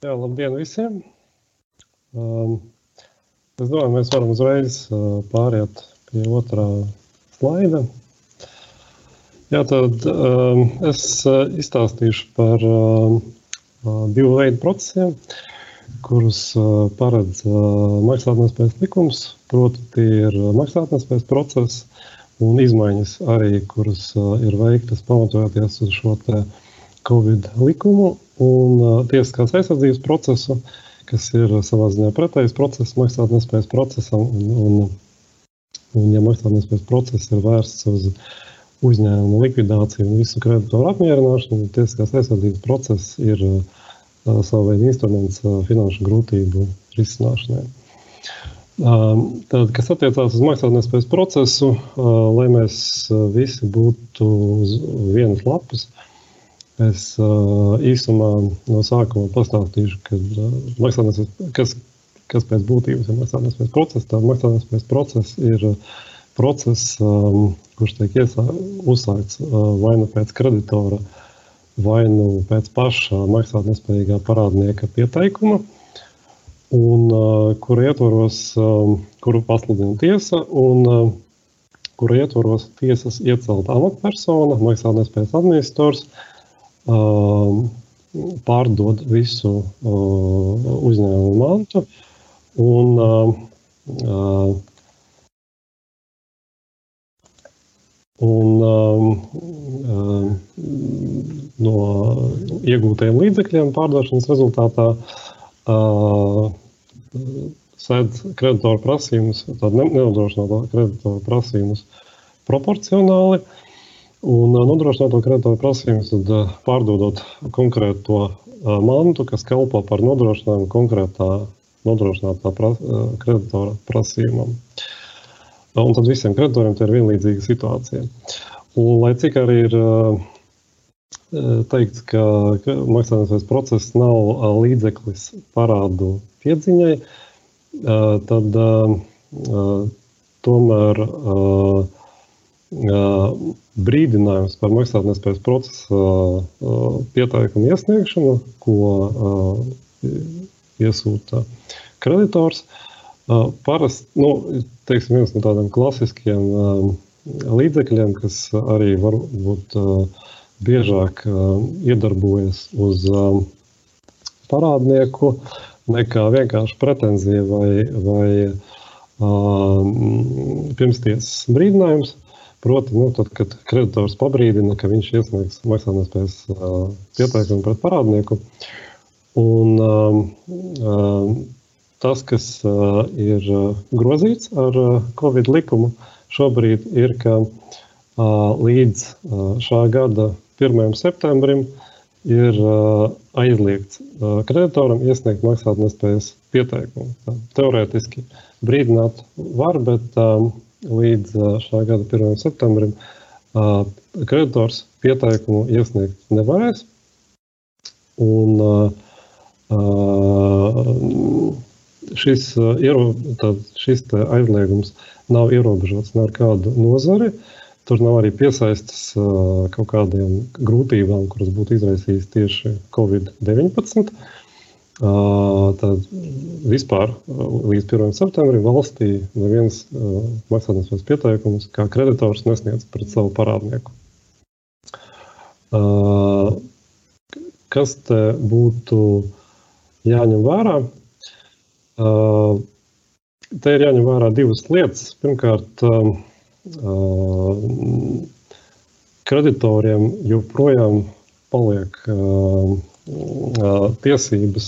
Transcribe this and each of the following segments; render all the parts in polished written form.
Jā, labdien visiem! Es domāju, mēs varam uzreiz pāriet pie otrā slaida. Jā, tad es izstāstīšu par divu veidu procesiem, kurus paredz maksātnespējas likums, proti tie ir maksātnespējas process un izmaiņas arī, kuras ir veiktas pamatojoties uz šo te Covid likumu un tiesiskās aizsardzības procesu, kas ir savā ziņā pretējs process maksātnespējas procesam, un ja maksātnespējas process ir vērsts uz uzņēmumu likvidāciju un visu kreditoru apmierināšanu, tiesiskās aizsardzības process ir savu veidu instruments finanšu grūtību risināšanai. Tad, kas attiecās uz maksātnespējas procesu, lai mēs visi būtu uz vienas lapas, es īsumā no sākuma pastāstīšu, kas pēc būtības ir maksātnespējas process. Tā maksātnespējas process ir process, kurš tiek uzsākts vai nu pēc kreditora, vai nu pēc paša maksātnespējīgā parādnieka pieteikuma, un kuru ietvaros, kuru pasludina tiesa, un kuru ietvaros tiesas iecelta amatpersona, maksātnespējas administrators, pārdod visu uzņēmumu mantu un no iegūtajiem līdzekļiem pārdošanas rezultātā sēdz kreditoru prasījumus, tādu nenodrošināto kreditoru prasījumus proporcionāli, un nodrošināto kreditoru prasījumus, tad pārdodot konkrēto mantu, kas kalpo par nodrošinājumu konkrētā nodrošinātā kreditora prasījumam. Un tad visiem kreditoriem tie ir vienlīdzīga situācija. Un, lai cik arī ir teikts, ka maksātnespējas process nav līdzeklis parādu piedziņai, tad tomēr brīdinājums par maksātnespējas procesa pieteikumu iesniegšanu, ko iesūta kreditors, parasti, teiksim, viens no tādiem klasiskiem līdzekļiem, kas arī varbūt biežāk iedarbojas uz parādnieku nekā vienkārši pretenzija vai pirmstiesas brīdinājums. Proti, tad, kad kreditors pabrīdina, ka viņš iesniegs maksātnespējas pieteikumu pret parādnieku. Un tas, kas ir grozīts ar Covid likumu šobrīd, ir, ka līdz šā gada 1. septembrim ir aizliegts kreditoram iesniegt maksātnespējas pieteikumu. Teorētiski brīdināt var, bet līdz šā gada 1. septembrim kreditors pieteikumu iesniegt nevarēs. Un šis aizliegums nav ierobežots ar kādu nozari. Tur nav arī piesaistas kaut kādiem grūtībām, kuras būtu izraisījis tieši Covid-19. Tad vispār līdz 1. septembrim valstī neviens maksātnespējas pieteikumus kā kreditors nesniedz pret savu parādnieku. Kas te būtu jāņem vērā? Te ir jāņem vērā divas lietas. Pirmkārt, kreditoriem joprojām paliek tiesības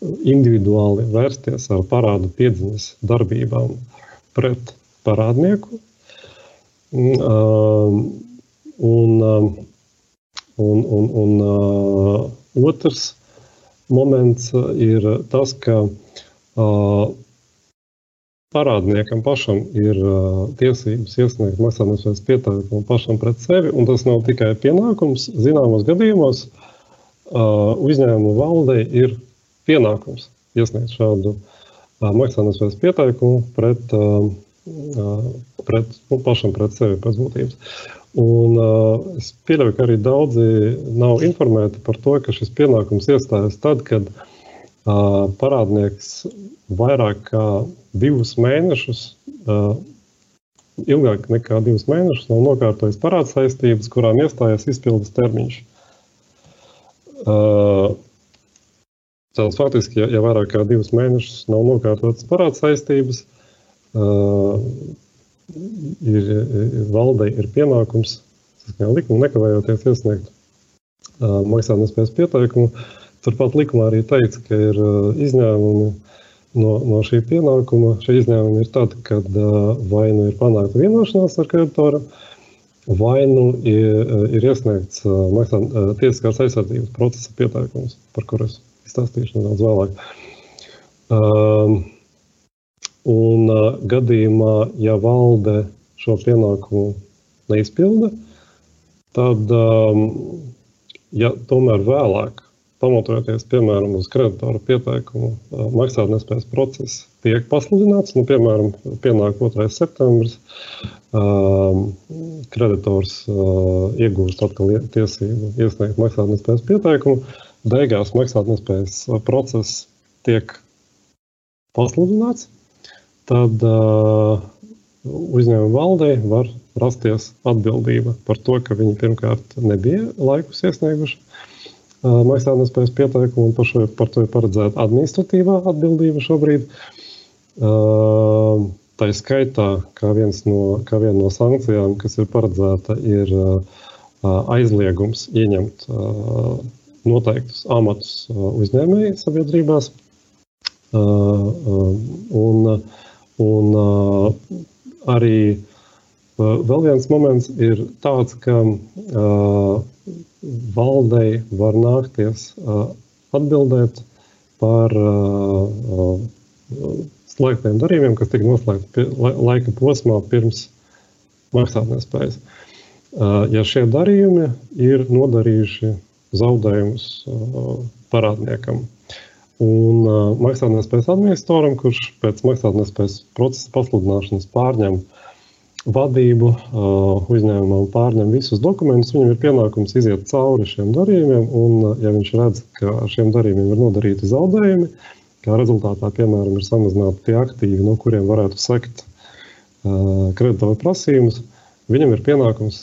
individuāli vērsties ar parādu piedziņas darbībām pret parādnieku. Un otrs moments ir tas, ka parādniekam pašam ir tiesības iesniegt maksātnespējas pieteikumu pašam pret sevi, un tas nav tikai pienākums. Zināmos gadījumos uzņēmuma valdei ir pienākums iesniegt šādu maksātnespējas pieteikumu pašam pret sevi pēc būtības. Un es pieļauju, ka arī daudzi nav informēti par to, ka šis pienākums iestājas tad, kad parādnieks vairāk kā 2 mēnešus, ilgāk nekā 2 mēnešus nav nokārtojis parādsaistības, kurām iestājas izpildes termiņš. Tātad faktiski, ja vairāk kā 2 mēnešus nav nokārtotas parādsaistības, valdei ir pienākums saskaņā likumu nekavējoties iesniegt maksātnespējas pieteikumu. Turpat likumā arī teica, ka ir izņēmumi no šī pienākuma. Šie izņēmumi ir tādi, kad vai nu ir panākta vienošanās ar kreditoru, vai nu ir iesniegts tiesiskās aizsardzības procesa pieteikums, par kuru es izstāstīšu nedaudz vēlāk. Un gadījumā, ja valde šo pienākumu neizpilda, tad, ja tomēr vēlāk, pamatojoties, piemēram, uz kreditoru pieteikumu, maksātnespējas process tiek pasludināts, piemēram, pienāk 2. septembris, kreditors iegūst atkal tiesību iesniegt maksātnespējas pieteikumu, beigās maksātnespējas process tiek pasludināts, tad uzņēmuma valdei var rasties atbildība par to, ka viņi pirmkārt nebija laikus iesnieguši maksātnespējas pieteikumu, un par to ir paredzēta administratīvā atbildība šobrīd. Tā skaitā, kā viena no sankcijām, kas ir paredzēta, ir aizliegums ieņemt noteiktus amatus uzņēmēju sabiedrībās. Un arī vēl viens moments ir tāds, ka valdei var nākties atbildēt par slēgtiem darījumiem, kas tika noslēgti laika posmā pirms maksātnespējas. Ja šie darījumi ir nodarījuši zaudējumus parādniekam. Un maksātnespējas administratoram, kurš pēc maksātnespējas procesa pasludināšanas pārņem vadību uzņēmumā un pārņem visus dokumentus, viņam ir pienākums iziet cauri šiem darījumiem, un ja viņš redz, ka ar šiem darījumiem ir nodarīti zaudējumi, kā rezultātā, piemēram, ir samazināti tie aktīvi, no kuriem varētu sekt kreditoru prasījumus, viņam ir pienākums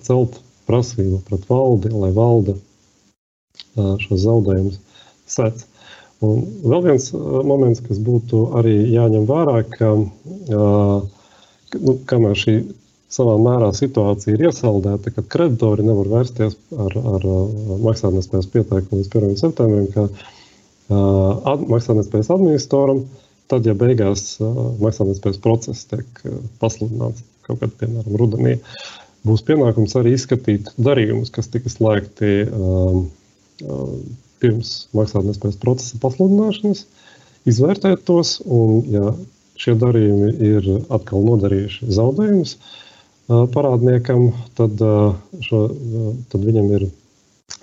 celt prasību pret valdi, lai valde šos zaudējumus sec. Un vēl viens moments, kas būtu arī jāņem vērā, ka kamēr šī savā mērā situācija ir iesaldēta, kad kreditori nevar vērsties ar maksātnespējas pieteikumu līdz 1. septembrim, ka maksātnespējas administratoram, tad, ja beigās maksātnespējas process tiek pasludināts kaut kad, piemēram, rudenī, būs pienākums arī izskatīt darījumus, kas tika slēgti pirms maksātnespējas procesa pasludināšanas, izvērtēt tos, un ja šie darījumi ir atkal nodarījuši zaudējumus parādniekam, tad viņam ir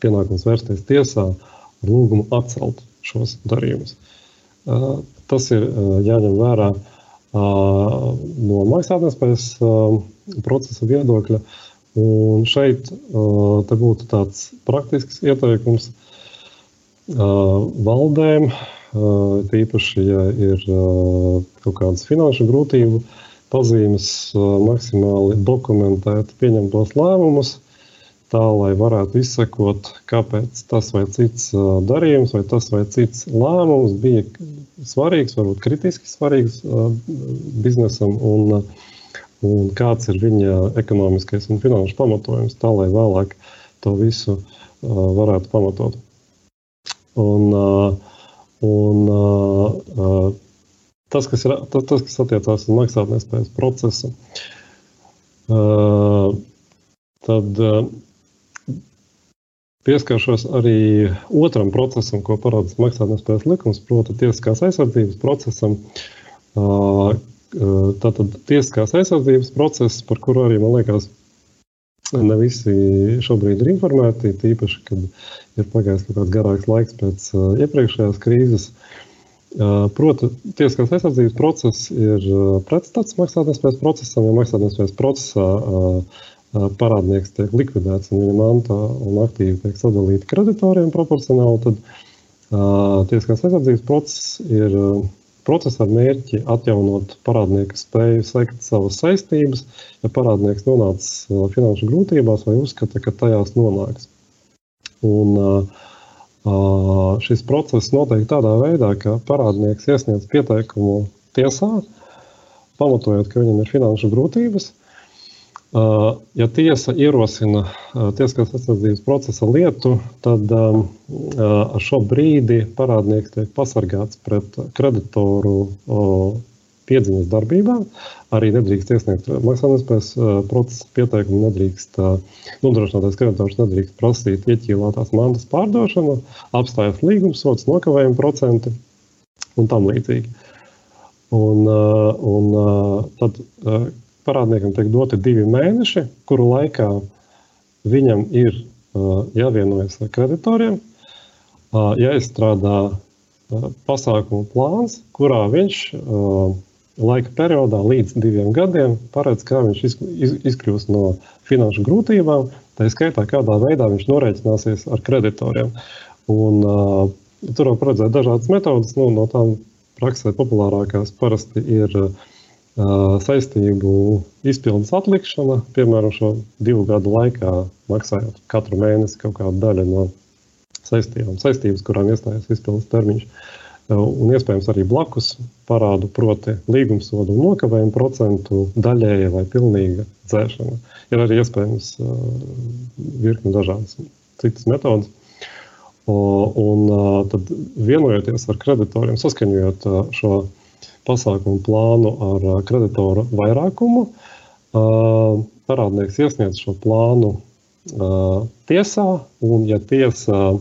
pienākums vērsties tiesā ar lūgumu atcelt šos darījumus. Tas ir jāņem vērā no maksātnespējas procesa viedokļa, un šeit te būtu tāds praktisks ieteikums valdēm, tīpaši, ja ir kaut kādas finanšu grūtību pazīmes, maksimāli dokumentēt pieņemtos lēmumus, tā, lai varētu izsekot, kāpēc tas vai cits darījums vai tas vai cits lēmums bija svarīgs, varbūt kritiski svarīgs biznesam, un kāds ir viņa ekonomiskais un finanšu pamatojums, tā, lai vēlāk to visu varētu pamatot. Tas, kas attiecās uz maksātnespējas procesu, tad pieskaršos arī otram procesam, ko paredz maksātnespējas likums, proti tiesiskās aizsardzības procesam. Tātad tiesiskās aizsardzības process, par kuru arī, man liekas, ne visi šobrīd ir informēti, tīpaši, kad ir pagājis kaut kāds garāks laiks pēc iepriekšējās krīzes. Proti, tiesiskās aizsardzības process ir pretstats maksātnespējas procesam, ja maksātnespējas procesā parādnieks tiek likvidēts un viņa manta un aktīvi tiek sadalīti kreditoriem proporcionāli, tad Tiesiskās aizsardzības process ir process ar mērķi atjaunot parādnieka spēju sekt savas saistības, ja parādnieks nonācis finanšu grūtībās vai uzskata, ka tajās nonāks. Un šis process notiek tādā veidā, ka parādnieks iesniedz pieteikumu tiesā, pamatojot, ka viņam ir finanšu grūtības. Ja tiesa ierosina tiesiskās aizsardzības procesa lietu, tad ar šo brīdi parādnieks tiek pasargāts pret kreditoru piedziņas darbībām. Arī nedrīkst iesniegt maksātnespējas procesa pieteikumu, nedrīkst nodrošinātais kreditors nedrīkst prasīt ieķīlātās mantas pārdošanu, apstājot līgumsots, nokavējuma procenti un tam līdzīgi. Un tad parādniekam tiek doti 2 mēneši, kuru laikā viņam ir jāvienojas ar kreditoriem, jāizstrādā pasākumu plāns, kurā viņš laika periodā līdz 2 gadiem paredz, kā viņš izkļūs no finanšu grūtībām, tā skaitā kādā veidā viņš norēķināsies ar kreditoriem. Un tur var paredzēt dažādas metodas, no tām praksē populārākās parasti ir saistību izpildes atlikšana, piemēram, šo 2 gadu laikā maksājot katru mēnesi kaut kādu daļu no saistības, kurām iestājas izpildes termiņš. Un iespējams arī blakus parādu, proti līgumsodu un nokavējumu procentu daļēja vai pilnīga dzēšana. Ir arī iespējams virkni dažādas citas metodas. Un tad vienojoties ar kreditoriem, saskaņojot šo pasākumu plānu ar kreditoru vairākumu, parādnieks iesniedz šo plānu tiesā, un ja tiesa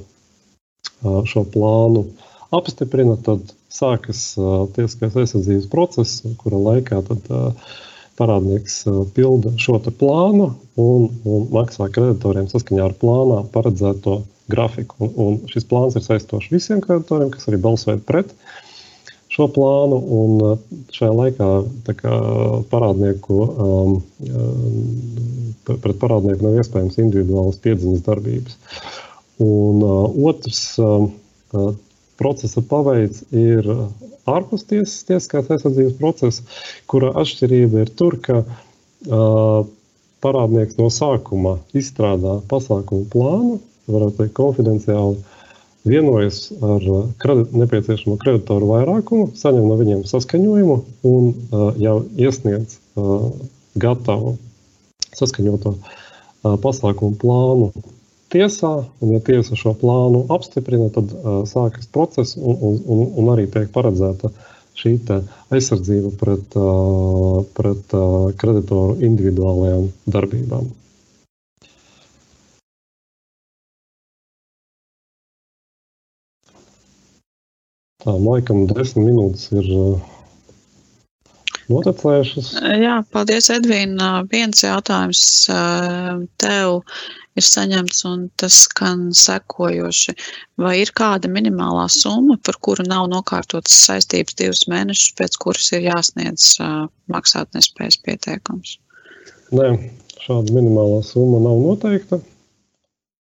šo plānu apstiprina, tad sākas tiesiskās aizsardzības process, kura laikā tad parādnieks pilda šo te plānu un maksā kreditoriem saskaņā ar plānā paredzēto grafiku. Un šis plāns ir saistošs visiem kreditoriem, kas arī balsoja pret šo plānu, un šajā laikā pret parādnieku nav iespējams individuālas piedziņas darbības. Un otrs procesa paveids ir ārpus tiesiskās aizsardzības procesa, kura atšķirība ir tur, ka parādnieks no sākuma izstrādā pasākumu plānu, varētu teikt konfidenciāli, vienojas ar nepieciešamo kreditoru vairākumu, saņem no viņiem saskaņojumu un jau iesniedz gatavu saskaņoto pasākumu plānu tiesā, un ja tiesa šo plānu apstiprina, tad sākas process un arī tiek paredzēta šī aizsardzība pret kreditoru individuālajām darbībām. Tā, laikam 10 minūtes ir notecējušas. Jā, paldies, Edvīna. Viens jautājums tev ir saņemts, un tas skan sekojoši. Vai ir kāda minimālā summa, par kuru nav nokārtotas saistības 2 mēnešus, pēc kuras ir jāsniedz maksātnespējas pieteikums? Nē, šāda minimālā summa nav noteikta.